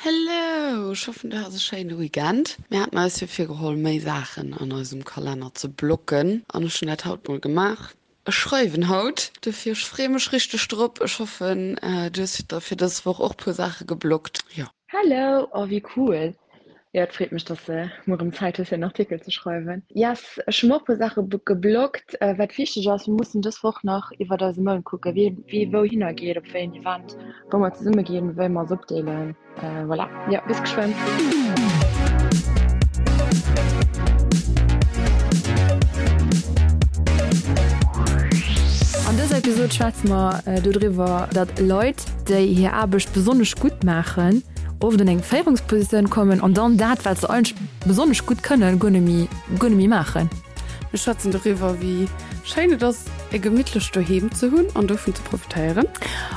Hello! Ech hoffen du has e schéine Weekend. Mir haten eis jo virgeholl méi Saachen an eisem Kalenner ze blocken an ech hunn dat haut mol gemaach. Ech schreiwen haut, dofir ech freeë mech richteg drop. Ech hoffen du hues der fir dës Woch och puer Saache geblockt. Jo. Hello! Oh wéi cool! Jo et freet mech dass de muer erëm Zäit hues fir en Artikel ze schreiwen. Yes, ech hu mer och puer Saache geblockt. Wat wichteg ass, mir mussen dës Woch nach iwwert eise Mount kucken, wien wéi wouhinner geet, op wéi en Event, wou mer zesumme ginn, wéi mer eis opdeelen. Voilà, jo bis geschwënn. An dëser Episod schwätze mer dodriwwer, datt Leit, déi hir Aarbecht besonnesch gutt maachen, oft an eng Féierungspositioun kommen an dann dat, wat se eigentlech besonnesch gutt kënnen, guer net méi, guer net méi maachen. Mir schwätzen doriwwer, wéi schéin et ass, e gemittlecht Doheem ze hunn an dovun ze profitéieren.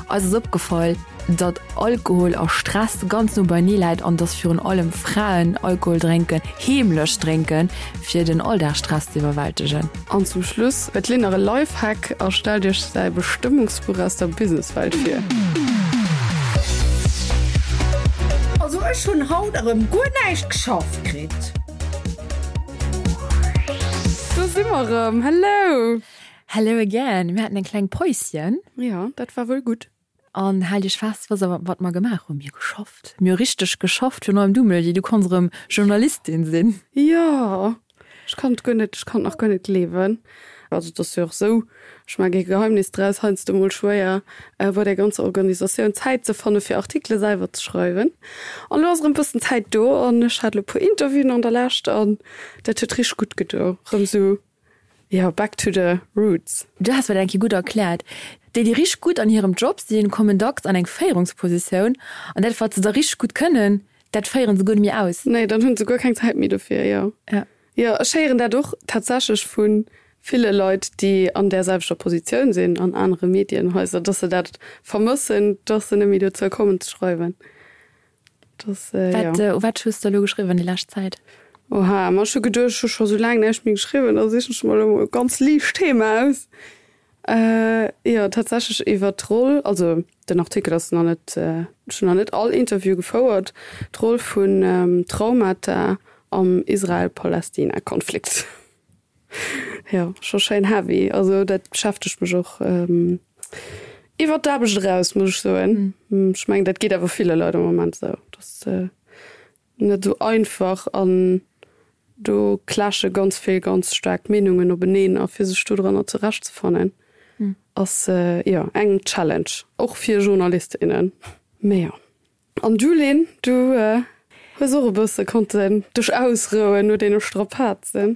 Eis ass opgefall, datt Alkohol a Stress ganz no beienee läit an datt virun allem Fraen Alkohol drénken, heemlech drénken, fir den Alldagsstress ze iwwerwältegen. An zum Schluss huet d'Lynn nach e Lifehack a stellt iech säi Bestëmmungsbuch aus der Businesswelt vir. Also ech hunn haut erëm guer näischt geschafft kritt. Do si mer erëm, hello! Hello again, mir haten eng kleng Päuschen. Jo, dat war wuel gutt. An haalt iech fest, was awer wat mer gemaach hunn, Mir hu geschafft. Mir hu richteg geschafft, virun allem du, Melody, du konns erëm Journalistin sinn. Jo, ech kann et guer net, ech kann et nach guer net gleewen. Also et ass jo och esou, ech maache kee Geheimnis draus, heiansdo mol schwéier bei där ganzer Organisatioun Zäit ze fanne fir Artikele selwer ze schreiwen. An elo ass erëm e bëssen Zäit do an ech hat elo e puer Interviewen an der Lescht an dat huet richteg gutt gedo, erëm esou Jo, back to the roots. Du has mer dat eng Kéier gutt erkläert. Déi, déi richteg gutt an hirem Job sinn, kommen dacks an eng Féierungspositioun an dat, wat se da richteg gutt kënnen, dat féiere se guer net méi aus. Nee, dann hunn se guer keng Zäit méi dofir, jo. Ja. Jo, ech héieren dat och tatsächlech vu ville Leit, déi an där selwechter Positioun sinn an anere Medienhaiser, dass se dat vermëssen, dass se net méi dozou kommen ze schreiwen. Das, äh, wat, ja. äh, wat hues du elo geschriwwen déi lescht Zäit? Oha, ma ech hu geduecht, ech hu scho sou laang näischt méi geschriwwen, da sichen ech mer elo mol e ganz liicht Thema aus. Äh, jo, tatsächlech iwwer d'Roll, also den Artikel ass nach net, äh, ech hunn nach net all Interview gefouert, d'Roll vun ähm, Traumata am Israel-Palästina-Konflikt. Jo, scho schéin heavy. Also dat beschäftegt mech och iwwer d'Aarbecht eraus, muss ech soen. Ech mengen, dat geet awer ville Leit am Moment esou. Dat ass net esou einfach an do clashe ganz vill ganz staark Meenungen openeen a fir sech dodranner zurechtzefannen ass jo eng Challenge, och fir Journalist, innen. Mee jo. An du Lynn, du hues och e bësse konnten dech ausrouen no deene Strapazen?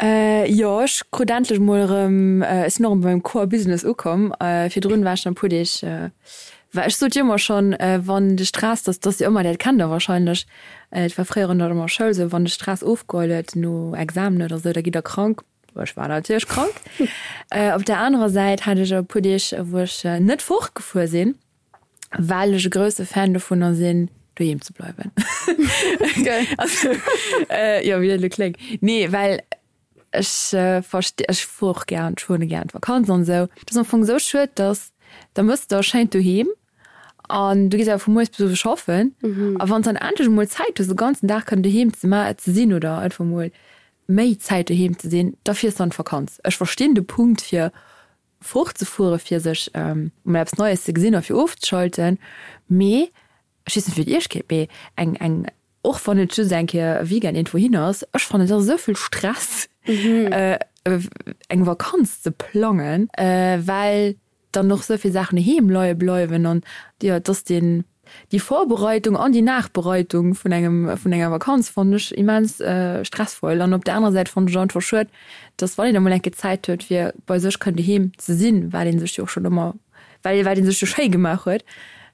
Jo, ech krut endlech mol erëm, ech sinn och erëm beim Core Business ukomm. Virdrun war ech dann e puer Deeg, well ech sot jo ëmmer schonn, wann de Stress, dass dass jo ëmmer, dat kennt der wahrscheinlech, et war fréier an der Schoul esou, wann de Stress ofgeholl huet no Examen oder esou, da gitt der krank. Ech war natierlech krank. Op der anerer Säit hat ech e puer Deeg, wou ech net fortgefuer sinn. Well ech e grousse Fan dovunner sinn, doheem ze bleiwen. Also, jo, wéi dat elo kléngt. Nee, well ech versti, ech fuer och gär, ech fueren gär an d'Vakanz an esou. Et ass am Fong esou schued, dass da mëss de schéin doheem an du gees awer vu mueres bis owes schaffen. A wann s dann endlech emol Zäit hues, de ganzen Dag kënnen doheem ze ma ze sinn oder einfach emol méi Zäit doheem ze sinn, da fiers de an d'Vakanz. Ech verstinn de Punkt fir fortzefuere fir sech mol eppes Neies ze gesinn a fir ofzeschalten, mee ech weess net wéi et iech geet, mee eng eng och wann et just eng Kéier e Weekend iergendwou hin ass, ech fannen et ass esou vill Stress eng Vakanz ze plangen, well dann och esou vill Saachen doheem leie bleiwen an jo et ass deen Déi Vorbereitung an déi Nachbereitung vun engem, vun enger Vakanz fannen ech immens stressvoll. An op der anerer Säit fannen ech et einfach schued, dass wann een emol eng Kéier Zäit huet fir bei sech kënnen doheem ze sinn, wat ee sech jo och schonn ëmmer, well wat ee sech jo schéi gemaach huet,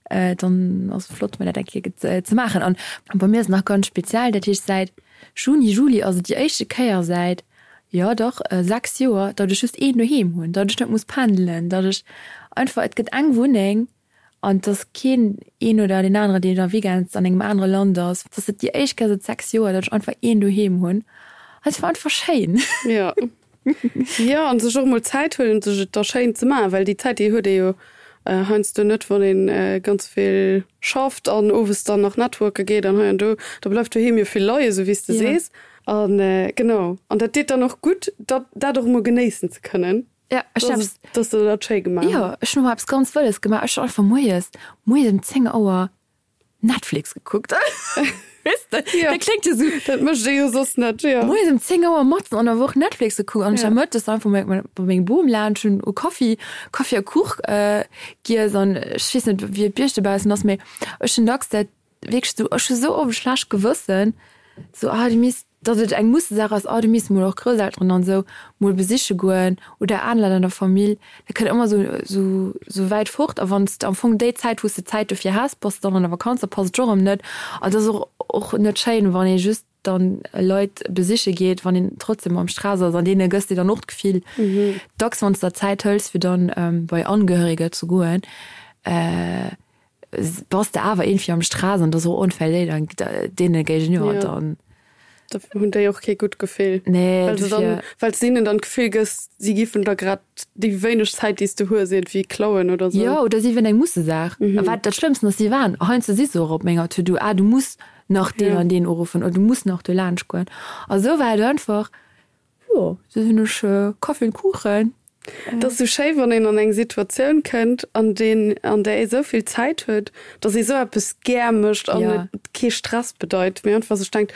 dann ass et flott mol dat eng Kéier ze maachen. An bei mir ass et nach ganz speziell, dat heescht säit Juni, Juli ass et déi éischte Kéier säit, jo dach 6 Joer, datt ech just een doheem hunn, datt ech net muss pendelen, datt ech einfach, et gëtt eng Wunneng An et ass keen een oder deen aneren, deen da weekends an engem anere Land ass. Et ass et déi éischt Kéier säit 6 Joer, datt ech einfach een doheem hunn. An et war einfach schéin. Jo. Jo, an sech och emol Zäit huelen, sech et da schéin ze maachen, well déi Zäit, déi huet ee jo. Heiansdo net, wann ee ganz vill schafft an owes dann nach networke geet an hei an do, da bleift doheem jo vill leien, esou wéi s de sees. A genau, an dat deet dann och gutt, dat dat och emol genéissen ze kënnen. Ja, ech hunn eppes. Dass de dat schéi gemaach hues. Jo, ech hunn emol eppes ganz Wëlles gemaach. Ech hunn einfach moies, moies ëm 10 Auer Netflix gekuckt. Weess de, Ja. dat kléngt jo sou. Dat mécht ee jo soss net, jo. Moies ëm 10 Auer matzen an der Woch Netflix gekuckt an ech war mëttes einfach bei bei mengem Bom laanscht, hunn u Kaffi, Kaffi a Kuch giess an ech weess net, wéi et bei iech dobaussen ass, mee ech hunn dacks dat wierklech sou, ech hu sou oft e schlecht Gewëssen, sou, ah, du misst datt et eng Mussesaach ass, oh du misst mol och Grousselteren an esou mol besiche goen oder aner Leit an der Famill, dat kënnt ëmmer esou esou esou wäit fort a wann s de am Fong déi Zäit wou s de Zäit dofir häss, bass de dann an der Vakanz, da passt et och erëm net an et ass och och net schéin, wann ee just dann Leit besiche geet, wann een trotzdem am Stress ass an deene gëss de dann och d'Gefill dacks, wann s der Zäit hëls fir dann bei Angehöriger ze goen, Bass de awer iergendwéi am Stress an et ass och onfair déi deene géigeniwwer dann. Da hunn déi och kee gutt Gefill. Nee, well se dann, well s de hinnen dann d'Gefill gëss, si giffen der grad déi wéineg Zäit, déi s de hues, iergendwéi klauen oder sou. Jo, oder si wieren eng Mussesaach. A wat dat Schlëmmsten ass, si waren heiansdo si se och op menger To-do, ah du muss nach deen an deen uruffen oder du muss nach do laanscht goen. A sou war et einfach, Jo, sou hunn ech Kaffi und Kuchen. Et ass sou schéi wann een an eng Situatioun kënnt an deen an där ee sou vill Zäit huet, datt ee sou eppes gär mécht an et kee Stress bedeit, mee einfach sech denkt,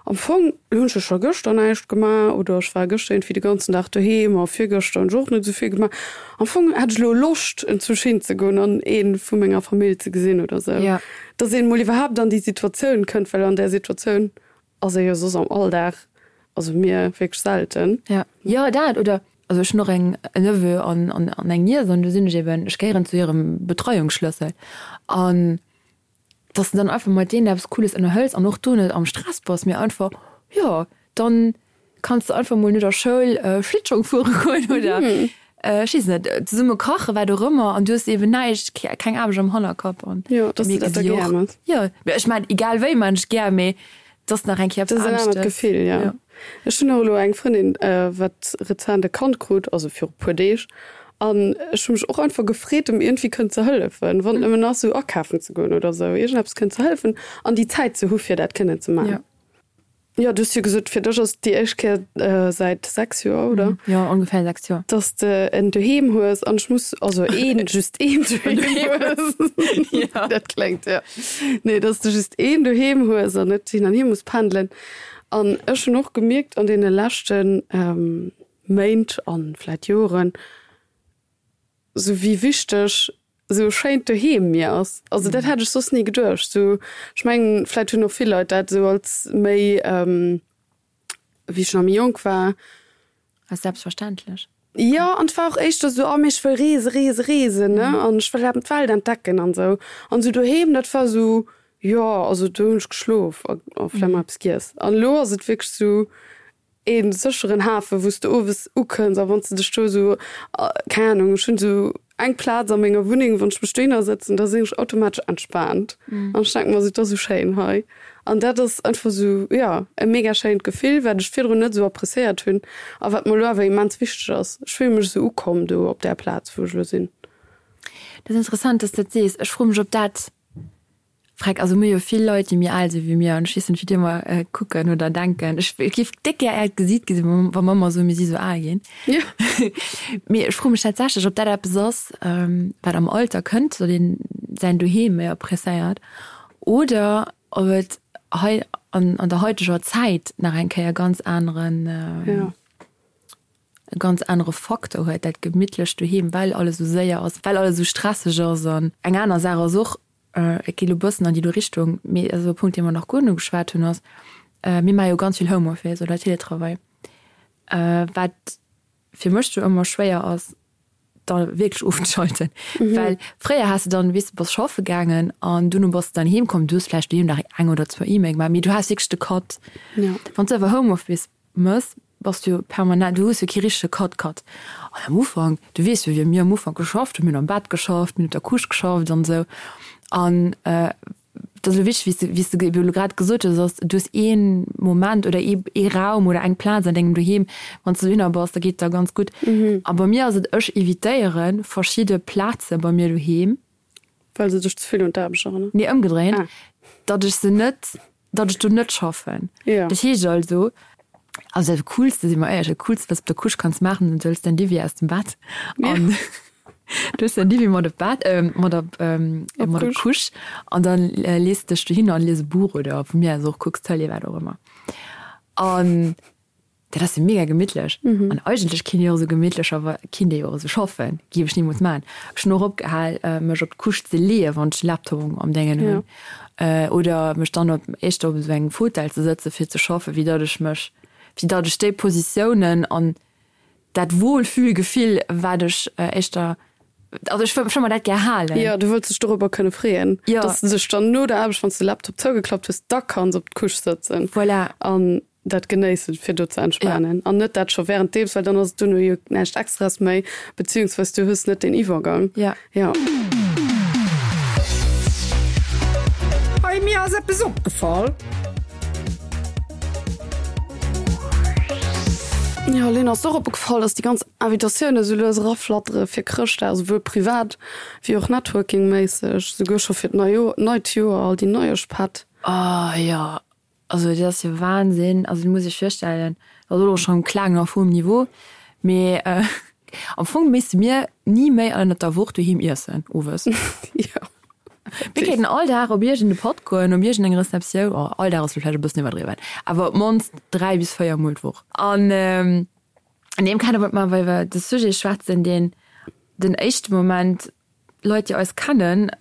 am Fong hunn ech jo scho gëschter näischt gemaach oder ech war gëschter iergendwéi de ganzen Dag doheem a virgëschter hunn ech och net sou vill gemaach. Am Fong hätt ech elo Loscht enzwousch hinzegoen an ee vu menger Famill ze gesinn oder sou. Datt een mol iwwerhaapt an déi Situatioun kënnt, well an där Situatioun Ass ee jo soss am Alldag, also mir wierklech selten. Ja, jo dat oder also ech hunn och eng en Neveu an an an eng Niess an do sinn ech eben, ech gehéieren zu hirem Betreiungsschlëssel an dass de dann einfach mat deenen eppes Cooles ënnerhëls an och do net am Stress bass, mee einfach jo dann kanns de einfach mol no der Schoul Schlittschong fuere goen oder ech weess net, zesumme kachen, wat och ëmmer an du hues eben näischt, keng Aarbecht am Hannerkapp an Jo, dass du dat da gär mëss. Jo, mee ech maan egal wéi maan ech gär, mee et ass nach eng Kéier eppes anescht. Dat ass en anert Gefill, jo. Ech hunn och elo eng Frëndin, wat rezent e Kand krut, also viru puer Deeg, an ech hu mech och einfach gefreet, em iergendwéi kënnen ze hëllefen, wann et nëmmen ass, esou akafen ze goen oder esou, iergendeppes kënnen ze hëllefen an déi Zäit ze hu fir dat kënnen ze maachen. Jo, du hues jo gesot, fir dech ass et déi éischt Kéier säit 6 Joer, oder? Jo, ongeféier 6 Joer. Dass de en Doheem hues an ech muss, also een, just een Doheem hues. Jo. Dat kléngt, jo. Nee, dass de just een Doheem hues an net hin an hier muss pendelen. An ech hunn och gemierkt an deene leschte Méint an vläit Joren, Sou wéi wichteg sou e schéint Doheem mir ass. Also dat hätt ech soss ni geduecht. Sou, ech mengen, vläit hunn och vill Leit dat sou als méi, wéi ech nach méi jonk war. Als selbstverständlech. Jo, an et war och éischter sou, oh mee ech wëll reese, reese, reesen, ne, an ech wëll eben d'Welt entdecken an sou. An sou doheem, dat war sou, jo, also do hunn ech geschlof a vläicht mol eppes giess. An elo ass et wierklech sou, ee sécheren Hafen, wou s de owes ukënns a wann s de dech do esou, keng Ahnung, ech hunn esou eng Plaz a menger Wunneng, wann ech mech dohinner sëtzen, da sinn ech automatesch entspaant an ech denke mer esou, et ass esou schéin hei. An dat ass einfach esou, jo, e mega schéint Gefill, wat ech virdrun net esou appreciéiert hunn a wat mer elo awer immens wichteg ass. Ech fille mech esou ukomm do op där Plaz, wou ech elo sinn. Dat ass interessant, dass s de dat sees. Ech froe mech, ob dat Freck, also mir hu jo vill Leit, déi méi al si wéi mir an ech weess net, wéi déi ëmmer kucken oder denken. Ech géif déck gär äert Gesiit gesinn, wa mer ëmmer soen, mir si sou al ginn. Mee ech froe mech tatsächlech, ob dat eppes ass, wat am Alter kënnt, datt een säin Doheem méi appreciéiert, oder ob et hei an der haiteger Zäit nach eng Kéier ganz aneren. e ganz anere Faktor huet, dat gemittlecht Doheem, well alles esou séier ass, well alles esou stresseg ass. An eng aner Saach ass och, et geet elo e bëssen an déi do Richtung, mee dat ass e Punkt, dee mer nach guer net ugeschwat hunn, ass, mir maache jo ganz vill Homeoffice oder Teletravail, wat fir mech jo ëmmer schwéier ass, da wierklech ofzeschalten. Well fréier has de dann, weess de, bass schaffe gaangen an duerno bass de dann heem komm, du hues vläicht doheem nach eng oder zwou E-Mail gemaach, mee du has wierklech de Cut. Wann s de awer Homeoffice mëss, bass du jo permanent, du hues jo kee richtege Cut Cut. An am Ufank, du weess jo wéi mir am Ufank geschafft hunn, mir hunn am Bett geschafft, mir hunn op der Couche geschafft an esou. An. Dat ass elo wichteg, wéi s de, wéi s de elo grad gesot hues, ass, du hues ee Moment oder ee, ee Raum oder eng Plaz an dengem Doheem, wann s de dohinner bass, da geet et der ganz gutt. A bei mir ass et, ech evitéiere verschidde Plaze bei mir doheem. Well se dech ze vill un d'Aarbecht erënneren? Nee, ëmgedréint, datt ech se net, datt ech do net schaffen. Dat heescht also, also dat Coolste, si mer éierlech, dat Coolste, wat s de op der Couche kanns maachen, du hëls däin Diwwi aus dem Bett an du hues däin Diwwi mat op d'Bett, mat op, mat op d'Couche an dann lees de dech dohinner an lies e Buch oder vu mir aus och kucks Tëlee, wat och ëmmer. An Dat ass jo mega gemittlech. An eigentlech kinnt ee jo och esou gemittlecher kinnt ee jo och esou schaffen. Géif ech nimools maachen. Ech hunn och opgehal, mech op d'Couche ze leeën, wann ech de Laptop am Déngen hunn. Oder mech dann op éischter op esou engem Fauteuil ze sëtzen, fir ze schaffen, wéi datt ech mech, wéi datt ech déi Positiounen an dat Wohlfühlgefill, wat ech éischter, also ech wëll mer dat gär halen. Jo, du wëlls dech dorobber kënne freeën, datt s de dech dann no der Aarbecht, wann s de de Laptop zougeklappt hues, da kanns op d'Couche sëtzen. Voilà. An dat genéissen, fir do ze entspanen an net dat scho wärenddeems, well dann ass et duerno jo näischt Extraes méi, beziehungsweis du hues net den Iwwergang. Ja. Ja. Hey, mir ass eppes opgefall. Jo, Lynn, ass der och opgefall, dass déi ganz Invitatiounen esou lues eraflattere fir Chrëschtdag, esouwuel privat wéi och networkingméisseg, esouguer scho fir d'Neijoer, neit Joer, all déi Neieschpätt? Oh jo, Also dat ass jo Wahnsinn, also du muss iech virstellen, dat ass elo schonn Klagen auf hohem Niveau, mee am Fong misste mir ni méi ënnert der Woch doheem iessen owes. Jo. Mir kéinten all Dag op iergend e Patt goen, op iergend eng Receptioun, oh all Dag ass elo vläicht e bëssen iwwerdriwwen, awer op d'mannst 3 bis 4 mol d'Woch. An an deem Kader wollt mer awer iwwer de Sujet schwätzen, deen den éischte Moment Leit déi eis kennen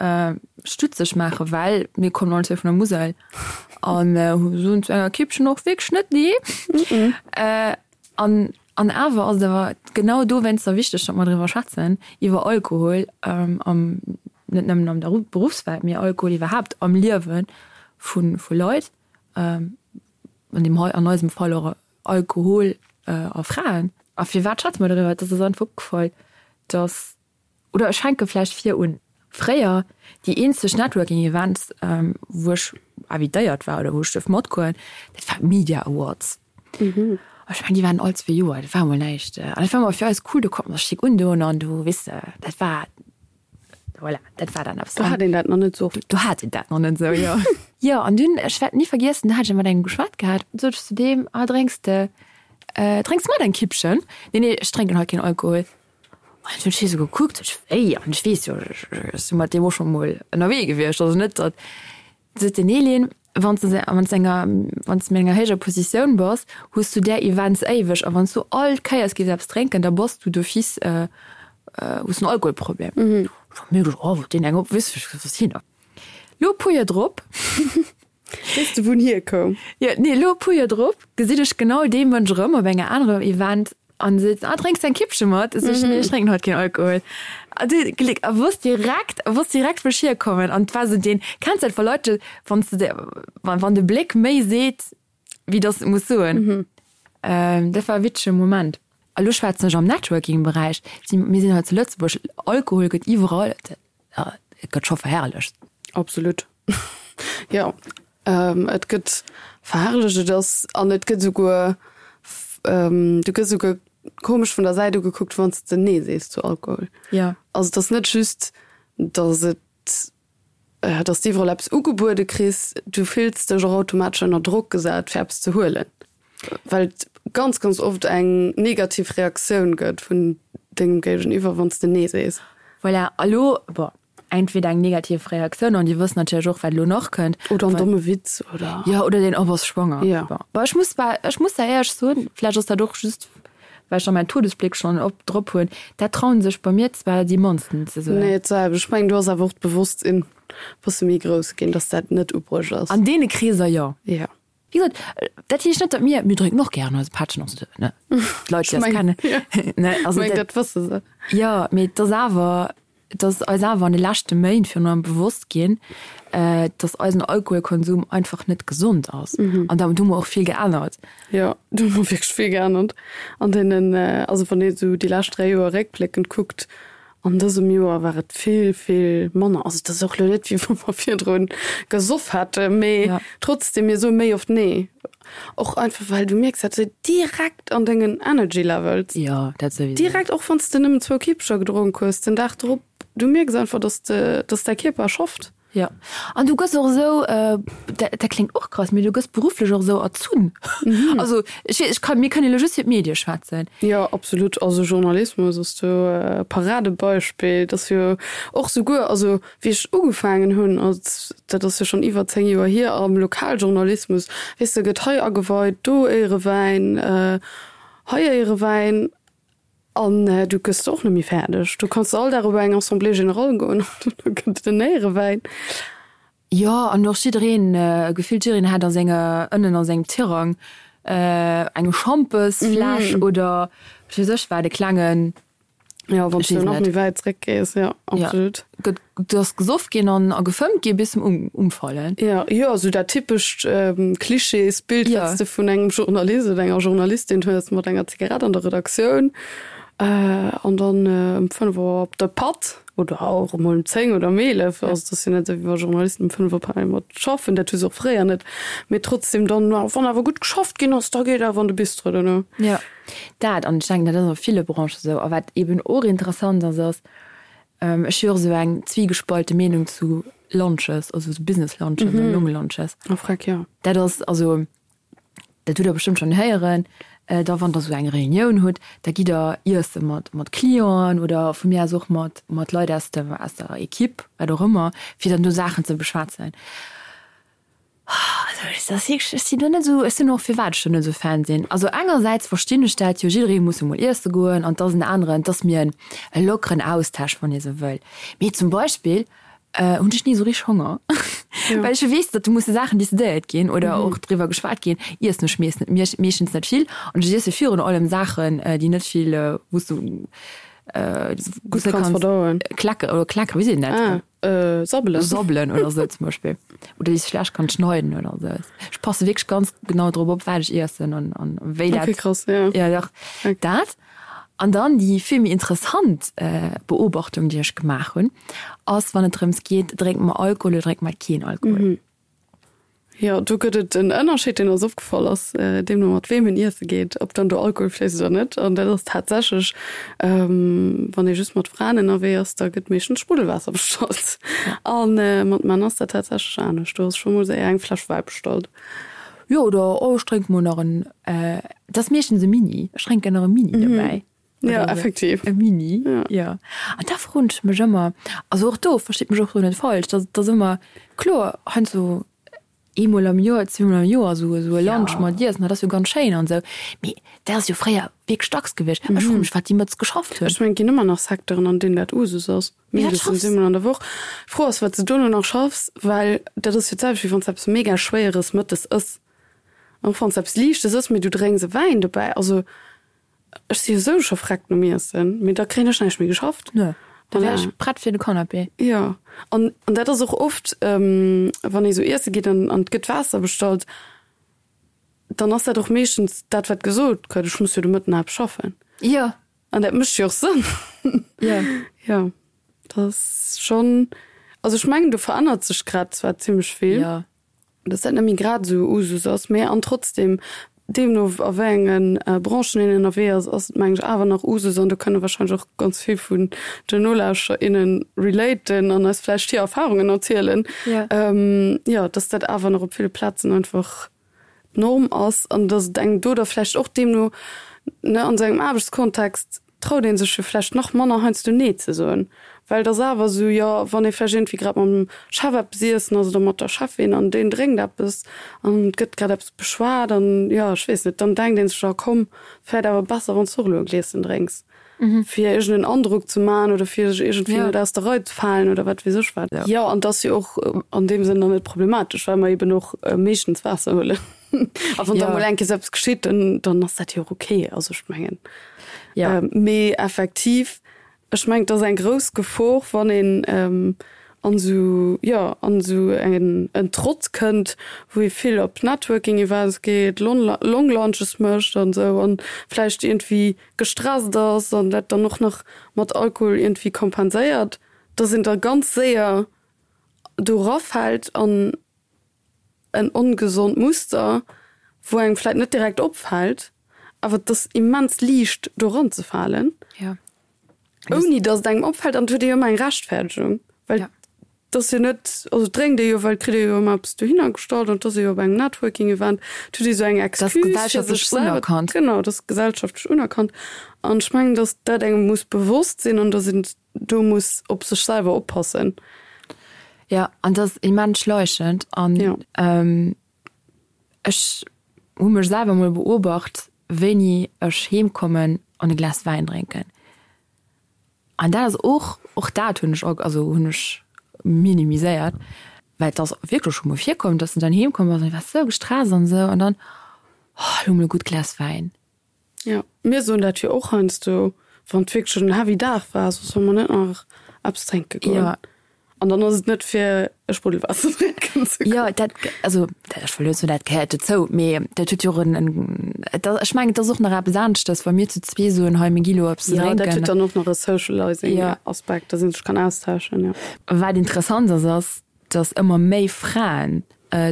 stutzeg maachen, well mir kommen all zwou vun der Musel an soen zu enger Kippchen och wierklech net nee. An an awer ass et awer genau dowéinster wichteg, datt mer driwwer schwätzen, iwwer Alkohol am, net nëmmen an der Beruffswelt, mee Alkohol iwwerhaapt am Liewe vu vu Leit, an deem hei an eisem Fall och Alkohol a Fraen. A firwat schwätze mer doriwwer? Et ass eis einfach opgefall, datt Oder ech fänke vläicht vir un. Fréier, déi eenzeg Networking Events, wou ech invitéiert war oder wou ech duerf matgoen, dat war d'Media Awards. An ech mengen, déi waren all zwee Joer, dat war emol näischt. An dat war ëmmer fir eis cool, do konnte mer sech schick undoen an do, weess de, dat war, voilà, dat war dann eppes. Do hat een dat nach net esou. Do hat een dat nach net esou, jo. Jo, an dunn, ech wäert ni vergiessen, do hat ech mat engem geschwat gehat, sot ech zu deem, Ah, drénks de, drénks de mat eng Kippchen? Nee, nee, ech drénken haut keen Alkohol. An hunn ech hie sou gekuckt, ech wéi, an ech weess jo, ech si mat deem och scho mol ënnerwee gewiescht, also net datt. Sot den Elin, wann s de wann s enger wann s de an enger héijer Positioun bass, hues du där Events éiweg a wann s du all Kéiers géifs eppes drénken, da bass du d'office hues du en Alkoholproblem. Ech hu mir geduecht, oh, deen eng op, weess ech, wat ass hien da? Lo e puer Joer drop. Weess de wou en hierkoum? Jo, nee, lo e puer Joer drop gesinn ech genau dee Mënsch erëm op enger anerem Event an seet, ah, drénks de eng Kippche mat? Ech sot, nee, ech drénken haut keen Alkohol. A du, Gléck, a wosst direkt, a wosst direkt wou ech hierkommen. An et war esou deen, kenns dat wa Leit, wann s de, wann, wann de Bléck méi seet, wéi dass et muss soen. Dat war e witzege Moment. A lo schwätzen ech am Networking-Beräich, si, mir sinn hei zu Lëtzebuerg, Alkohol gëtt iwwerall, et gëtt scho verherrlecht. Absolut. Jo, et gëtt verherrlecht, et ass, an et gëtt esouguer, du gëss esouguer komesch vun der Säit ugekuckt, wann s de Nee sees zu Alkohol. Jo. Also et ass net just, datt et, datt s de iwwerall eppes ugebuede kriss, du fills dech och automatesch ënner Drock gesat, fir eppes ze huelen, well et ganz, ganz oft eng negativ Reaktioun gëtt vun dengem Géigeniwwer, wann s de Nee sees. Voilà, a lo, bon, Entweder eng negativ Reaktioun, an déi wëssen natierlech och, wat elo nach kënnt. Oder en domme Witz, oder. Jo, oder deen, oh, bass schwanger. Jo. Bon, bon, ech muss zwar, ech muss da éierlech soen, vläicht ass dat och just, well ech da mäin Todesbléck schonn op drop hunn, dat trauen sech bei mir zwar déi mannsten ze soen. Nee, d'selwecht. Ech mengen, do ass awer och d'Bewosstsinn e bësse méi grouss ginn, dass dat net ubruecht ass. An deene Kreeser, jo. Jo. Wéi gesot, dat heescht net, datt mir, mir drénken och gären eise Pättchen, also, ne, d'Leit, déi eis kennen, ne, also dat, dat wësse se. Jo, mee et ass awer, et ass eis awer an de leschte Méint virun allem bewosst ginn, datt eisen Alkoholkonsum einfach net gesond ass. An da hu mer och vill geännert. Jo, do hu mer wierklech vill geännert an deenen, also wann ee sou déi lescht 3 Joer réckbléckend kuckt. An dësem Joer war et vill, vill manner. Also et ass och elo net, wéi wa mer virdru gesoff hätten, mee Ja. trotzdem, mir soe méi oft Nee. Och einfach, well du mierks dat esou direkt an dengen Energy Levels. Jo, dat souwisou. Direkt, och wann s de nëmmen zwou Kippecher gedronk hues den Dag drop, du mierks einfach, dass de, dass däi Kierper schafft. Jo, an du gëss och esou, dat dat kléngt och krass, mee du gëss berufflech och esou erzunn. Also ech weess, ech kann, mir kënnen elo just fir d'Medie schwätzen. Jo, absolut. Also Journalismus ass do e Paradebeispill. Dat ass jo och souguer, also wéi ech ugefaangen hunn, als, dat ass jo schonn iwwer 10 Joer hier, am Lokaljournalismus, weess de, gëtt hei ageweit, do Éierewäin, hei Éierewäin. An du gëss och net méi fäerdeg. Du kanns all Dag op eng Assemblée générale goen an do gëtt et en Éierewäin. Jo, an och jiddereen, gefillt jiddereen hat a senger, ënnen a sengem Tirang eng Schampesfläsch oder wat weess ech wat, e klengen. Jo, wann s du nach méi wäit zréckgees, jo, absolut. Gëtt, do ass gesoff ginn an a gefëmmt gi bis zum Umfallen. Jo, jo, esou dat typescht Klischeesbild, wat s de vun engem Journalist oder enger Journalistin hues, mat enger Zigarett an der Redaktioun an dann ëm 5 Auer op de Patt oder och emol ëm 10 oder ëm 11. Also et ass jo net esou, wéi wa Journalisten ëm 5 op einmal mat schaffen, dat hu se och fréier net, mee trotzdem dann, wann awer gutt geschafft ginn ass, da geet awer an de Bistro duerno. Jo. Dat, an ech denken, dat ass a ville Branchen esou. A wat eeben och interessant ass, ass, ech hu jo och esou eng zwiegespalten Meenung zu Lunches, also esou Business Lunches oder Long Lunches. Oh freck, jo. Dat ass, also dat hutt Der bestëmmt schonn héieren, da wann Der esou eng Reunioun hutt, da gitt Der iesse mat, mat Clienten oder vu mir aus och mat, mat Leit aus dem, aus der Equipe, wat och ëmmer, fir dann do Saachen ze beschwätzen. Also ech ass wierklech, ech sinn do net esou, ech sinn och firwat ech do net esou Fan sinn. Also engersäits verstinn ech dat jo, jidderee muss jo mol iesse goen an 't ass en aneren, 't ass mir e lockeren Austausch, wann ee sou wëll. Mee zum Beispill hunn ech ni esou richteg Honger, well ech jo weess, datt do musse Saachen decidéiert ginn oder och driwwer geschwat ginn, iessen ech mees net, meeschtens net vill an ech iesse virun allem Saachen, déi net vill, wou s du gutt kanns verdauen, kleckeren oder kleckeren, wéi seet een dat? Sabbelen. Sabbelen oder sou zum Beispill. Oder déi s schlecht kann schneiden oder sou. Ech passe wierklech ganz genau drop op, wat ech iessen an, an wéi dat. Okay, krass, ja. Ja, dach. Okay. Dat. An dann déi vill méi interessant Beobachtung, déi ech gemaach hunn, ass, wann et drëms geet, drénke mer Alkohol oder drénke mer keen Alkohol. Jo, do gëtt et en Ënnerscheed, deen eis opgefall ass, deemno mat weem een iesse geet, ob dann do Alkohol fléisst oder net. An dat ass tatsächlech, wann ee just mat Fraen ënnerwee ass, da gëtt meeschtens Spruddelwaasser bestallt. A mat Männer ass dat tatsächlech anescht, do ass scho mol séier eng Fläsch Wäi bestallt. Jo, oder oh, ech drénke mol nach en, et ass meeschtens e Mini, ech drénken nach e Mini dobäi. Ja, effektiv. E Mini, ja. An da froen ech mech ëmmer, also och do, verstitt mech och do net falsch, dat ass ëmmer, kloer, heiansdo eemol am Joer, zweemol am Joer esou esou e Lunch mat iessen, dat ass jo ganz schéin an esou, mee dat ass jo fréier wierklech dacks gewiescht. Ech froe mech, wat déi mëttes geschafft hunn. Ech mengen, et ginn ëmmer nach Secteuren, an deenen dat Usus ass, mindestens eemol an der Woch. D'Fro ass, wat s de dono nach schaffs, well dat ass jo d'selwecht, wéi wann s de eppes mega Schwéieres mëttes ëss. An och wann s de eppes Liichtes ëss, mee du drénks e Wäin dobäi, also Ech si jo sou scho vreckt nom Iessen, mee da kréien ech näischt méi geschafft. Nö, da wär ech prett fir de Canapé. Jo, an an dat ass och oft, wann ee sou iesse geet an an et gëtt Waasser bestallt, dann ass dat och meeschtens dat, wat gesot gëtt, Ech muss jo de Mëtten nach eppes schaffen. Jo. An dat mécht jo och Sënn. Jo. Jo, dat ass schonn, also ech mengen, do verännert sech grad zwar zimmlech vill. Jo. dass dat net méi grad esou Usus ass, mä an trotzdem, deemno a wéi enge Branchen een ënnerwee ass, ass et meng ech awer nach Usus an do kënne wahrscheinlech och ganz vill vun den Nolauschterer, innen relaten an eis vläicht hir Erfahrungen erzielen, jo, dass dat awer nach op ville Plazen einfach d'Norm ass an dass et engem do da vläicht och deemno, ne, an esou engem Aarbechtskontext traut ee sech jo vläicht nach manner heiansdo Nee ze soen, well et ass awer esou, jo, wann ee vläicht iergendwéi grad mam Chef eppes iessen ass oder mat der Cheffin an deen drénkt eppes an et gëtt grad eppes beschwat an, jo, ech weess net, dann denkt ee sech, jo komm, vläicht awer besser, wann s du och elo e Glieschen drénks, fir iergend en Androck ze maachen oder fir sech iergendwéi net aus der Rei ze falen oder wat weess ech wat. Jo, an et ass jo och an deem Sënn dann net problematesch, well mer eben och meeschtens Waasser huelen. A wann da mol eng Kéier sou eppes geschitt, dann, dann ass dat jo och okay. Also ech mengen. Ja. Mee effektiv, ech mengen, et ass eng grouss Gefor, wann een ähm, An esou, jo, an esou en en Trott kënnt, wou ee vill op Networking Events geet, Long Lunches mécht an esou an vläicht iergendwéi gestresst ass an dat dann och nach mat Alkohol iergendwéi kompenséiert, dass een da ganz séier do erafält an en ongesond Muster, wou engem vläit net direkt opfält, awer et ass immens liicht do eranzefalen, ouni datt et engem opfält an et huet ee jo ëmmer eng Rechtfäerdegung, well et ass jo net, also et drénkt ee jo, well et kritt ee jo ëmmer eppes dohinner gestallt an et ass ee jo op engem Networking-Event, et huet ee sou eng Excuse fir sech selwer, genau, et ass gesellschaftlech unerkannt an ech mengen, datt dat engem muss bewosst sinn an datt een do muss op sech selwer oppassen. Jo, an dat ass immens schleichend. An ja. ähm, ech hu mech selwer mol beobacht, wéini ech heem kommen an e Glas Wäin drénken. An dat ass och, och dat hunn ech, also hunn ech minimiséiert, well et ass wierklech scho mol virkomm, dass de dann heem komm bass an du waars sou gestresst an esou an dann, oh, elo mol e gutt Glas Wäin. Jo, mir soen dat jo och heiansdo, wann et wierklech en heavy Dag war, so solle mer net nach eppes drénke goen. Ja. An dann ass et net fir e Spruddelwaasser drénken ze goen. Jo, dat, also ech wëll net soen, dat gehéiert dozou, mee dat huet jo och en, en, et ass, ech mengen, et ass och nach eppes aneschtes, wa mir zu zwee soen, hei mir gi lo eppes Jo, drénken. dat huet dann och nach e Socializing-Aspekt, dass ee sech kann austauschen, jo. Wat interessant ass, ass, dass ëmmer méi Fraen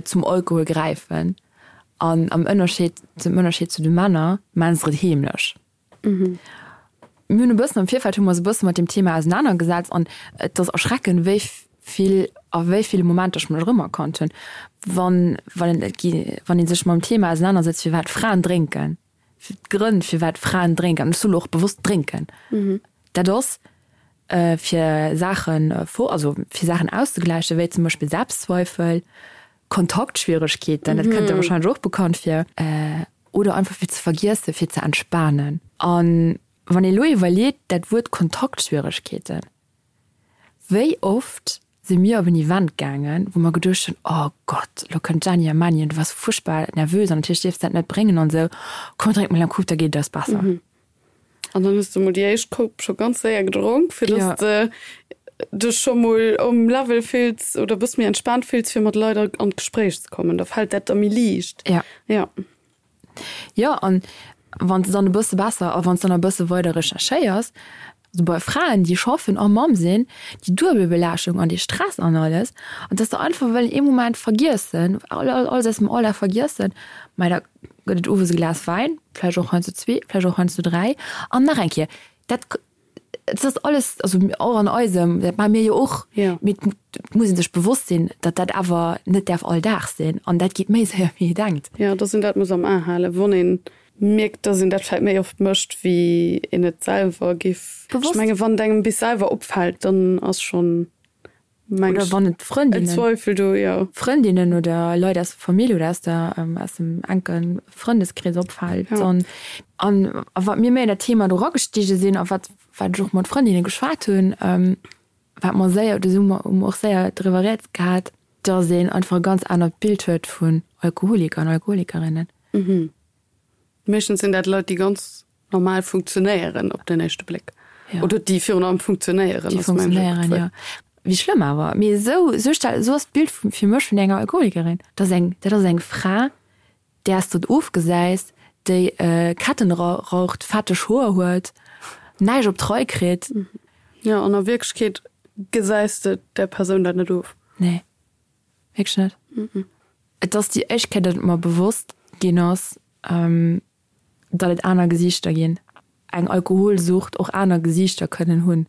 zum Alkohol gräifen an am Ënnerscheed, zum Ënnerscheed zu de Männer, maachen se et heemlech. Mir hunn e bëssen am Virfeld hu mer eis e bësse mat deem Thema ausenanergesetzt an et ass erschreckend, wéi vill a wéi ville Momenter ech mech erëmerkannt hunn, wann, wann et gi, wann ee sech mam Thema ausenanersetzt, firwat Fraen drénken, d'Grënn firwat Fraen drénken, an ech soe lo och bewosst drénken, dat ass fir Saachen, also fir Saachen auszegläichen, wéi zum Beispill Selbstzweifel, Kontaktschwieregkeeten, dat kënnt der wahrscheinlech och bekannt vir, oder einfach fir ze vergiessen, fir ze entspanen. An wann ee lo iwwerleet, dat Wuert Kontaktschwieregkeeten, wéi oft si mir op en Event gaangen, wou mer geduecht hunn, oh Gott, lo kënnt d'Jenny a Manny an du waars fuerchtbar nervös an natierlech dierfs de dat net bréngen an esou, komm drénk mol eng Coupe, da geet et eis besser. An dann hues de mol déi éischt Coupe scho ganz séier gedronk, fir dass de dech scho mol um Level fills oder e bësse méi entspaant fills, fir mat Leit an d'Gespréich ze kommen. Da fält dat da méi liicht. Ja. Ja. Jo, an wann s de dann e bësse besser a wann s de dann e bësse weider recherchéiers, also bei Fraen, déi schaffen a Mamm sinn, déi duebel Belaaschtung an dee Stress an alles, an dass se einfach wëllen ee Moment vergiessen, alles aus dem Alldag vergiessen, mä da gëtt et owes e Glas Wäin, vläicht och heiansdo zwee, vläicht och heiansdo dräi an nach eng Kéier, dat dat ass alles, also och an eisem, dat maache mir jo och, mee et muss ee sech bewosst sinn, datt dat awer net däerf all Dag sinn an dat geet méi séier wéi ee denkt. Jo, datt een dat muss am A halen, wann ee mierkt, datt een dat vläicht méi oft mécht, wéi een et selwer géif. Ech menge wann et engem bis selwer opfält, dann ass schonn Meng Oder wann et Frëndinnen, Zweifel do, jo. Frëndinnen oder Leit aus der Famill oder aus der, aus dem enke Frëndeskrees opfält. Ja. An, an a wat mir méi an dat Thema do eragestigen sinn a wat, wat ech och mat Frëndinne geschwat hunn, wat mer séier, do si mer, hu mer och séier driwwer rieds gehat, dass een einfach e ganz anert Bild huet vun Alkoholiker an Alkoholikerinnen. Meeschtens sinn dat Leit, déi ganz normal funktionéieren op den éischte Bléck. Ja. Oder déi virun allem funktionéieren. Déi funktionéieren, ja. Wéi schlëmm awer. Mee esou, esou stell, esou ass d'Bild vu, fir mech vun enger Alkoholikerin. Dat ass eng, dat ass eng Fra, där s de et ofgesäis, déi Ketten raucht, fetteg Hoer huet, näischt op d'Rei kritt. Jo, an a Wierklechkeet gesäis de där Persoun dat net of. Nee, wierklech net. Et ass déi éischt Kéier, datt et mer bewosst ginn ass, datt et aner Gesiichter ginn, eng Alkoholsucht och aner Gesiichter kënnen hunn,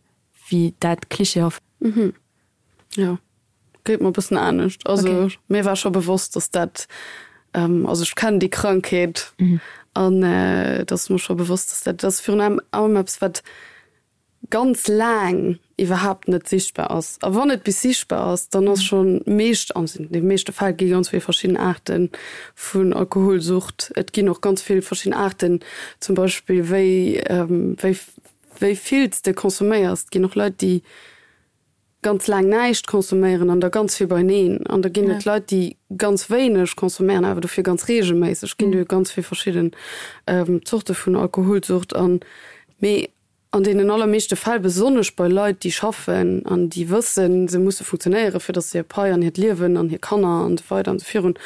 wéi dat klischeehaft. Mhm. Jo, geet mer e bëssen anescht. Also okay. Mir war scho bewosst, datt dat, also ech kennen déi Krankheet an et ass mer scho bewosst, datt dat, dat ass virun allem eppes, wat ganz laang iwwerhaapt net sichtbar ass. A wann et bis sichtbar ass, dann ass scho meescht, an de meeschte Fäll gi ganz vill verschidden Aarte vun Alkoholsucht. Et ginn och ganz vill verschidden Aarten, zum Beispill wéi wéi wéi vill s de consomméiers. Et ginn och Leit, déi ganz laang näischt consomméieren an da ganz vill beineen. An da ginn et Leit, déi ganz wéineg consomméieren, awer dofir ganz reegelméisseg. Et ginn jo ganz vill verschidden Zorte vun Alkoholsucht. An mee. An deenen allermeeschte Fäll, besonnesch bei Leit, déi schaffen an déi wëssen, se musse funktionéieren, fir datt se hir Pai an hiert Liewen an hir Kanner an esou weider an esou virun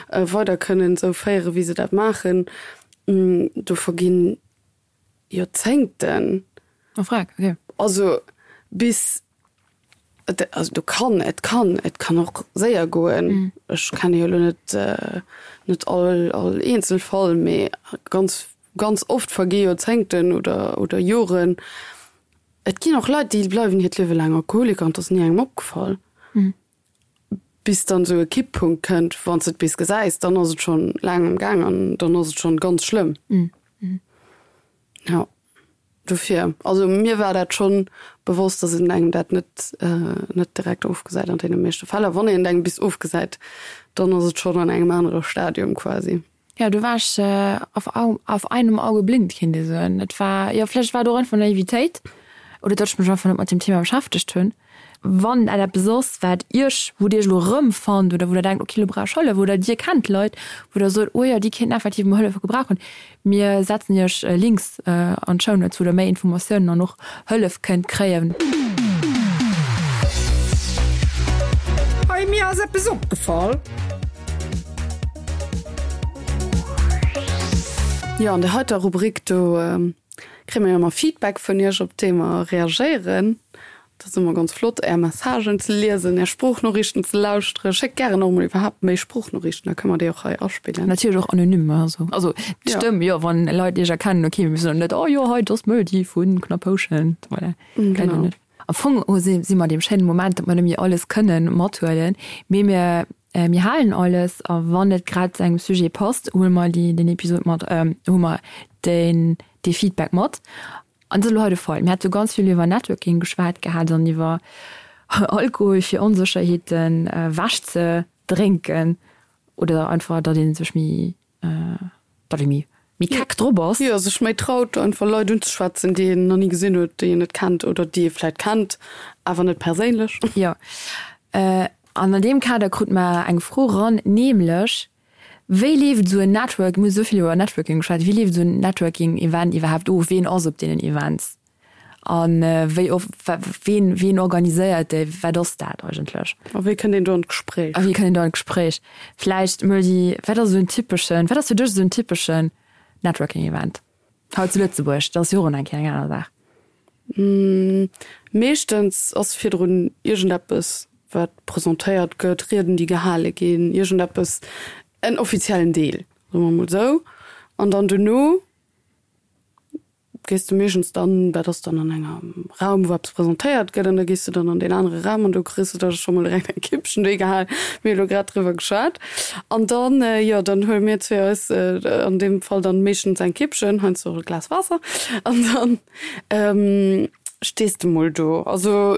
weider kënnen esou féieren, wéi se dat maachen, do verginn Joerzéngten. Oh freck, okay. Also bis, also do kann, et kann, et kann och séier goen. Ech kenne jo elo net, net all, all Eenzelfall, mee ganz Ganz oft vergi Joerzéngten oder, oder Joren. Et ginn och Leit, déi bleiwen hiert Liewe laang Alkoholiker an et ass ni engem opgefall. Bis dann esou e Kipppunkt kënnt, wann s de et bis gesäis, dann ass et schonn laang am Gaang an dann ass et schonn ganz schlëmm. Jo, dofir, also mir war dat schonn bewosst, dass een engem dat net, net direkt ofgesäit an deene meeschte Fäll. A wann een et engem bis ofgesäit, dann ass et schonn an engem anere Stadium quasi. Jo, do war ech auf auf einem Auge blind, kéint ee soen. Et war, jo, vläicht war et och einfach Naivitéit oder datt ech mech einfach net mat deem Thema beschäftegt hunn. Wann dat eppes ass, wat Iech, wou Dir Iech elo erëmfannt oder wou Der denkt, okay, elo brauch ech Hëllef oder Dir kennt Leit, wou Der sot, oh jo, déi kéinten effektiv mol Hëllef gebrauchen, Mir setzen Iech Links an d'Shownotes, wou Der méi Informatiounen an och Hëllef kënnt kréien. Hey, mir ass eppes opgefall. Jo, an der heiter Rubrik do kréie mir jo ëmmer Feedback vun Iech, op déi mer reagéieren. Dat ass ëmmer ganz flott, Är Messagen ze liesen, Är Sproochnoriichten ze lauschteren. Schéckt gären och mol iwwerhaapt méi Sproochnoriichten, da kënne mer déi och hei aspillen. Natierlech och anonym, also also d'Stëmm, jo, wann Leit Iech erkennen, ok, mir soen net, oh jo, hei, dat ass d'Möldi vu Knapphouschent, voilà. Genau. Net. Am Fong si si mer an deem schéinen Moment, datt mer net méi alles kënnen mathuelen, mee mir mir halen alles a wann et grad zu engem Sujet passt, huele mer déi den Episod mat, hu mer deen dee Feedback mat. An dat ass elo hei de Fall. Mir hate ganz vill iwwer Networking geschwat gehat an iwwer Alkohol fir Onsécherheeten ewech ze drénken oder einfach, datt ee sech méi, datt ee méi, méi keck drop ass. Jo, sech méi traut einfach Leit unzeschwätzen, déi een nach ni gesinn huet, déi een net kennt oder déi ee vläit kennt, awer net perséinlech. Jo. An an deem Kader krut mer eng Fro eran, nämlech, Wéi leeft esou en Network, mir hu sou vill iwwer Networking geschwat, wéi leeft esou en Networking-Event iwwerhaapt of? Ween ass op deenen Events a wéi of, ween, ween organiséiert déi, wat ass dat eigentlech? A wéi kënnt een do an d'Gespréich? A wéi kënnt een do an d'Gespréich? Vläicht Möldi, wat ass esou en typeschen, wat ass fir dech esou en typeschen Networking-Event hei zu Lëtzebuerg? Dat ass jo och eng Kéier eng aner Saach. Meeschtens ass virdrun iergendeppes, wat presentéiert gëtt, Rieden, déi gehale ginn, iergendeppes, en offiziellen Deel, soe mer emol esou. An dann dono gees de meeschtens dann, dat ass dann an engem Raum, wou eppes presentéiert gëtt, an da gees de dann an deen anere Raum an do kriss de da scho mol direkt eng Kippchen duerchgehal. Mir hu lo grad driwwer geschwat. An dann, jo, dann huele mir zwee eis an deem Fall dann meeschtens eng Kippchen, heiansdo och e Glas Waasser, an dann Stees de mol do. Also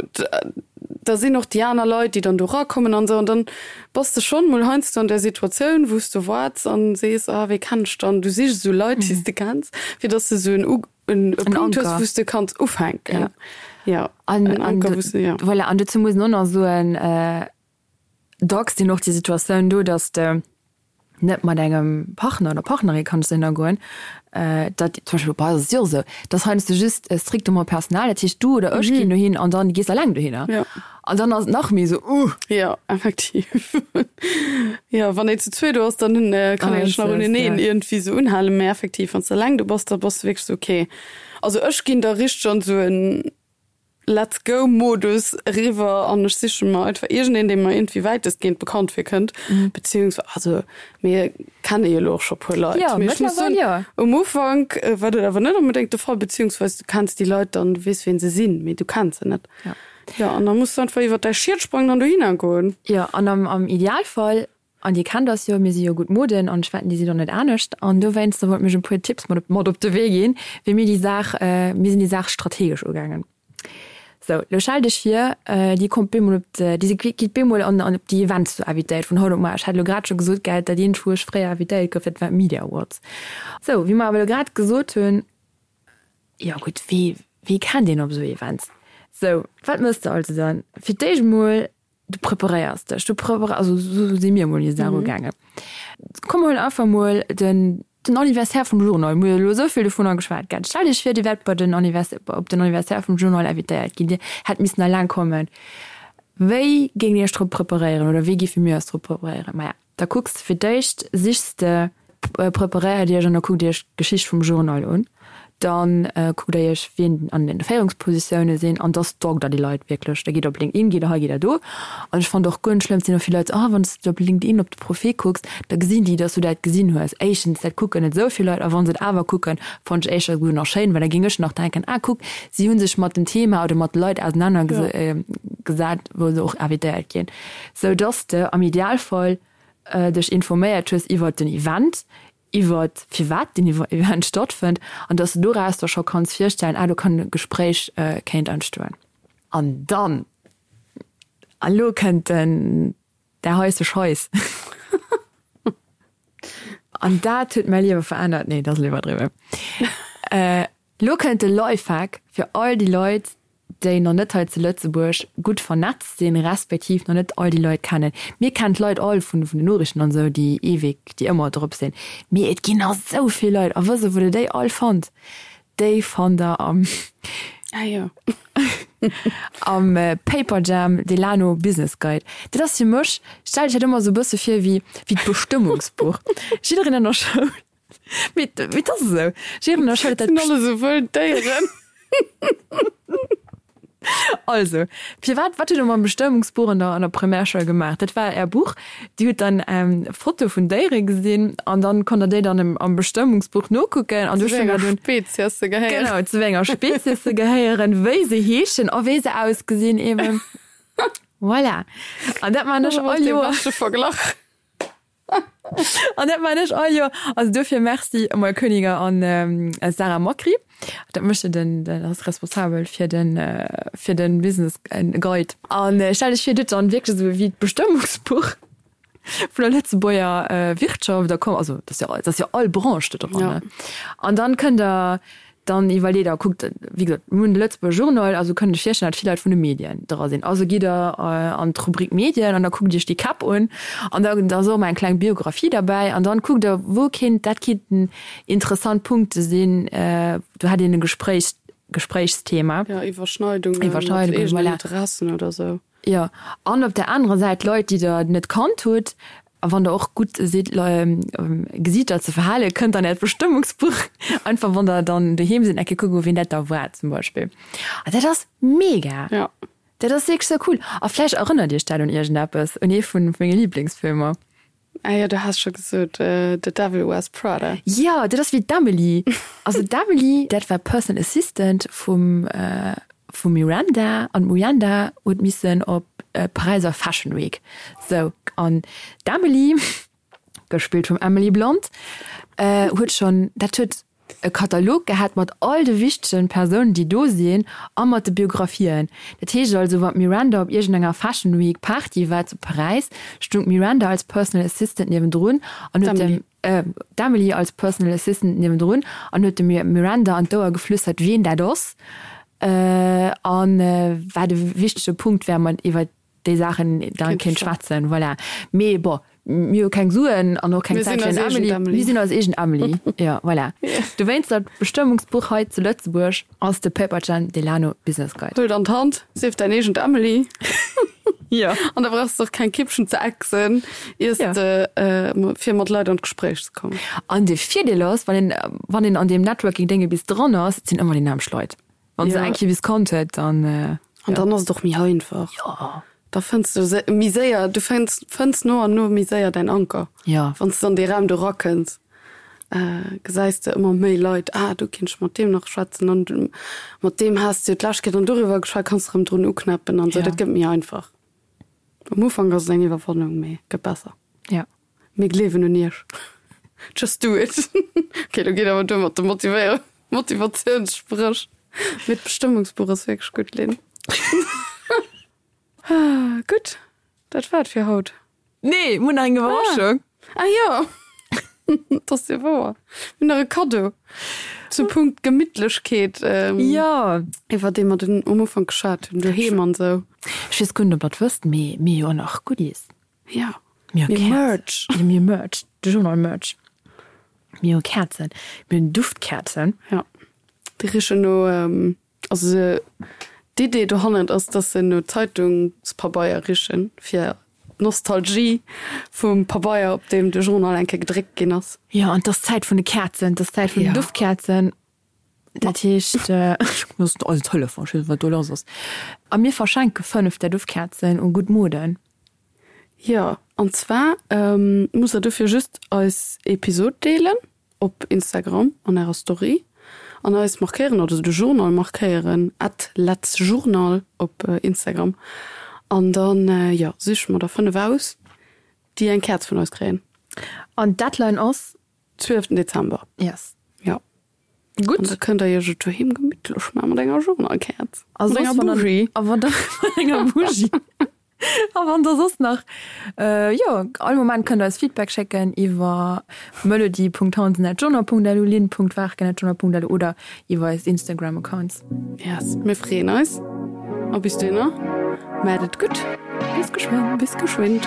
da sinn och déi aner Leit, déi dann do erakommen an esou. An dann bass de schonn mol heiansdo an där Situatioun, wou s de waarts an sees, ah wee kenn ech dann? Du sichs esou Leit, déi s de kenns, fir datt s de esou en U en e Punkt hues, wou s de kanns ufänken. Jo, en Anker, wou s de, jo. Voilà, an dozou muss een och nach soen, Dacks sinn och déi Situatioun do, dass de net mat engem Partner oder Partnerin kanns dohinner goen, dat zum Beispill bei eis ass et jo och esou, dass heiansdo just strictement personal, dat heescht du oder ech ginn dohin an dann gees eleng dohinner. Jo. An dann ass et nach méi esou, uh. Jo, effektiv. Jo, wann een zu zweet do ass, dann kann een sech nach uneneen iergendwéi esou unhalen, mä effektiv, wann s de eleng do bass, da bass de wierklech esou, okay. Also ech ginn da richteg an esou en Let's go Modus eriwwer an ech siche mer einfach iergendeen, dee mer iergendwéi wäitestgehend bekannt virkënnt, beziehungsweise, also mir kenne jo elo och scho puer Leit, Jo, mee ech muss mëttlerweil soen, jo. um Ufank war dat awer net onbedéngt de Fall, beziehungsweise du kenns déi Leit dann, du weess wien se sinn, mee du kenns se net. Ja. Jo, an da muss du einfach iwwer däi Schiet sprangen an dohinner goen. Jo, an am, am Idealfall, an Dir kennt eis jo, mir si jo gutt Moden an ech wetten, Dir sidd och net anescht, an dowéinster wollt mir iech e puer Tipps mat op, mat op de Wee ginn, wéi mir déi Saach, mir sinn déi Saach strategesch ugaangen. Sou, lo stell dech vir, Dir kommt bemol op de, Dir gitt bemol an, an op déi Events do invitéiert vun haut op muer. Ech hat elo grad scho gesot, gell, dat eent, wou ech fréier invitéiert gouf, dat war d'Media Awards. Sou, wéi mer awer elo grad gesot hunn, Jo gutt, wee, wee kennt een op esou Events? Sou, wat mëss de also dann? Fir d'éischt mol, du preparéiers dech, du preparéiers, also esou si mir mol déi Saach ugaangen. Komm mer huelen einfach mol den. Den Anniversaire vum Journal, mir hu elo esou vill dovunner geschwat, gell? Stellt Iech vir, Dir wäert bei den Anniversaire, op den Anniversaire vum Journal invitéiert ginn, Dir hätt missen eleng kommen. Wéi géingt Dir Iech drop preparéieren oder wéi géife mir eis drop preparéieren? Maja, da kucks de fir d'éischt, sichs de, preparéiert Iech an da kuckt Iech d'Geschicht vum Journal un. Dann kuckt der iech wien an den Féierungspositioune sinn an da stalkt der déi Leit wierklech. Da gitt der op LinkedIn, gitt der hei, gitt der do. An ech fannen et och guer net schlëmm, et sinn och vill Leit, ah wann s de op LinkedIn op de Profil kucks, da gesinn déi, dass du dat gesinn hues. Éischtens, dat kucken net esou vill Leit a wa se et awer kucken, fannen ech éischter esouguer nach schéin, well da géing ech nach denken, ah kuck, si hu sech mat dem Thema oder mat de Leit ausenaner gesat, wou se och invitéiert ginn. Sou dass de am Idealfall dech informéiert hues iwwert den Event, iwwert firwat deen Event stattfënnt an dass de doraus der scho kanns virstellen, ah do kann e Gespréich kéint entstoen. An dann, an elo kënnt den, der heisse Scheiss, an dat huet mäi Liewe verännert, nee, dat ass elo iwwerdriwwen, elo kënnt de Lifehack fir all déi Leit, déi nach net hei zu Lëtzebuerg gutt vernetzt sinn, respektiv nach net all déi Leit kennen. Mir kennen d'Leit all vun den Noriichten an esou, déi eweg, déi ëmmer drop sinn. Mee et ginn nach esou vill Leit. A wësst Der, wou Der déi all fannt? Déi fannt Der am, Ah jo. am Paperjam Delano Business Guide. Dat ass fir mech, stellt Iech dat ëmmer esou e bësse vir wéi, wéi d'Bestëmmungsbuch. Jiddereen an der Schoul. Mee et ass esou. Jiddereen erschëllt dat. Sinn alle sou wëll Déieren. Also, firwat, wat hutt Der mam Bestëmmungsbuch an der, an der Primärschoul gemaach? Dat war Är Buch. Dir hutt dann Fotoe vun Déiere gesinn an dann konnt Der déi dann am, am Bestëmmungsbuch nokucken an du Zu wéi enger Spezies se gehéieren. Genau, zu wéi enger Spezies se gehéieren, wéi se heeschen a wéi se ausgesinn eben. Voilà. An dat man ech all Joer. Dee beschte Verglach. An dat man ech all Joer. Also dofir Merci Emile Koeniger an Sarah Macri. Dat mécht jo den, den ass responsabel fir den, fir den Business Guide. An stell dech vir, dir hutt dann wierklech esou wéi d'Bestëmmungsbuch vun der Lëtzebuerger Wirtschaft, da komm, also dat ass jo, dat ass jo all Branche do dran, ne? An dann kënnt der Dann iwwerleet a kuckt, wéi gesot, mir hunn de Lëtzebuerger Journal, also kënnt Iech virstellen, datt vill Leit vun de Medien dra sinn. Also gitt Der an d'Rubrik Medien an da kuckt Iech déi Käpp un an da ass och ëmmer eng kleng Biographie derbäi an dann kuckt Der, wou kéint, dat kéinten interessant Punkte sinn, do hätt een e Gespréich, Gespréichsthema. Jo, Iwwerschneidungen mat eegenen Interessen oder sou. Jo, an op der anerer Säit Leit, déi Der net kannt hutt. A wann Der och gutt sidd, Gesiichter ze verhalen, kënnt an Äert Bestëmmungsbuch, einfach wann Der dann doheem sidd, eng Kéier kucken, wien dat da war zum Beispill. An dat ass mega! Jo. Dat ass wierklech sou cool. A vläicht erënnert Iech dat un iergendeppes, un ee vu menge Liblingsfilmer. Ah jo, du has scho gesot, The Devil Wears Prada. Jo, dat ass wéi d'Emily. Also d'Emily, dat war Personal Assistant vum vum Miranda an d'Miranda huet missen op d'Paräiser Fashion Week. Sou, an d'Emily, gespillt vum Emily Blunt, huet schonn, dat huet e Katalog gehat mat all de wichtegen Persounen, déi do sinn a mat de Biographien. Dat heescht also, wann d'Miranda op iergendenger Fashion Week Party war zu Paräis, stung d'Miranda als Personal Assistant niewendrun an huet dem, d'Emily als Personal Assistant niewendrun an huet dem Miranda an d'Ouer geflüstert, wien dat ass a wat e wichtege Punkt wär, mat iwwer déi Saachen dann kéint schwätzen. Voilà. Mee bon, mir hu keng Suen an och keng Zäit fir en Emily. Mir sinn eis eegen Emily. Jo, voilà. Dowéinst dat Bestëmmungsbuch hei zu Lëtzebuerg ass de Paperjam Delano Business Guide. Huel et an d'Hand, sief däin eegent Emily. Jo. An da brauchs de och keng Kippchen ze exen, iers de fir mat Leit an d'Gespréich ze kommen. An de Virdeel ass, wann een, wann een an deem Networking-Dénge bis dran ass, et sinn ëmmer déi nämmlecht Leit. Wann se eng Kéier bis kannt huet, dann. An dann ass et och méi einfach. Jo. Da fënns du méi séier, du fënns, fënns no an no méi séier däin Anker. Jo. Wann s de an dee Raum do rakënns, gesäis de ëmmer méi Leit, ah do kinnt ech mat deem nach schwätzen an mat deem has de jo d'lescht Kéier dann doriwwer geschwat, kanns de erëm drun uknäppen an esou. Dat gëtt méi einfach. Am Ufank ass et eng Iwwerwannung, mee gëtt besser. Jo. Mir gleewen un iech. Just do it. Ok, lo geet awer duer mat de Motivéier Motivatiounssprëch. Mee d'Bestëmmungsbuch ass wierklech gutt, Lynn. Gutt, dat war et fir haut. Nee, mir hunn nach eng Iwwerraschung. Ah jo, dat ass jo wouer. Mir hunn nach e Kaddo zum Punkt Gemittlechkeet, Jo. iwwer dee mer den um Ufank geschwat hunn, doheem an esou. Ech weess guer net, ob der et wësst, mee mir hu jo och nach Goodies. Jo, mir hu Merch. Mir hu Merch, de Journal Merch. Mir hu Käerzen. Mir hunn Duftkäerzen. Ja. Déi richen no, also se, d'Idee dohannert ass, dass se no Zeitungspabeier richen, fir d'Nostalgie vum Pabeier, op deem de Journal eng Kéier gedréckt ginn ass. Jo, an 't ass d'Zäit vun de Käerzen, 't ass d'Zäit vun den Duftkäerzen. Dat heescht, ech muss eisen Telefon, ech weess net, wat do lass ass. A mir verschenke 5 där Duftkäerzen u gutt Moden. Jo, an zwar musst der dofir just eis Episod deelen op Instagram an ärer Story an eis markéieren oder de Journal markéieren, at letzjournal op Instagram. An dann, jo, siche mer der 5 aus, déi eng Käerz vun eis kréien. An d'Deadline ass? 12 Dezember. Yes. Jo. Gutt. An da kënnt der iech et doheem gemittlech maachen mat enger Journalkäerz. A Mat soss, enger wann der, Bougie. a wann der, mat enger Bougie. A wann der soss nach, jo, all Moment kënnt der eis Feedback schécken iwwer melody.hansen@journal.lu, lynn.warken@journal.lu oder iwwer eis Instagram-Accounts. Yes, mir freeën eis. A bis dohinner, maacht et gutt. Bis geschwënn. Bis geschwind.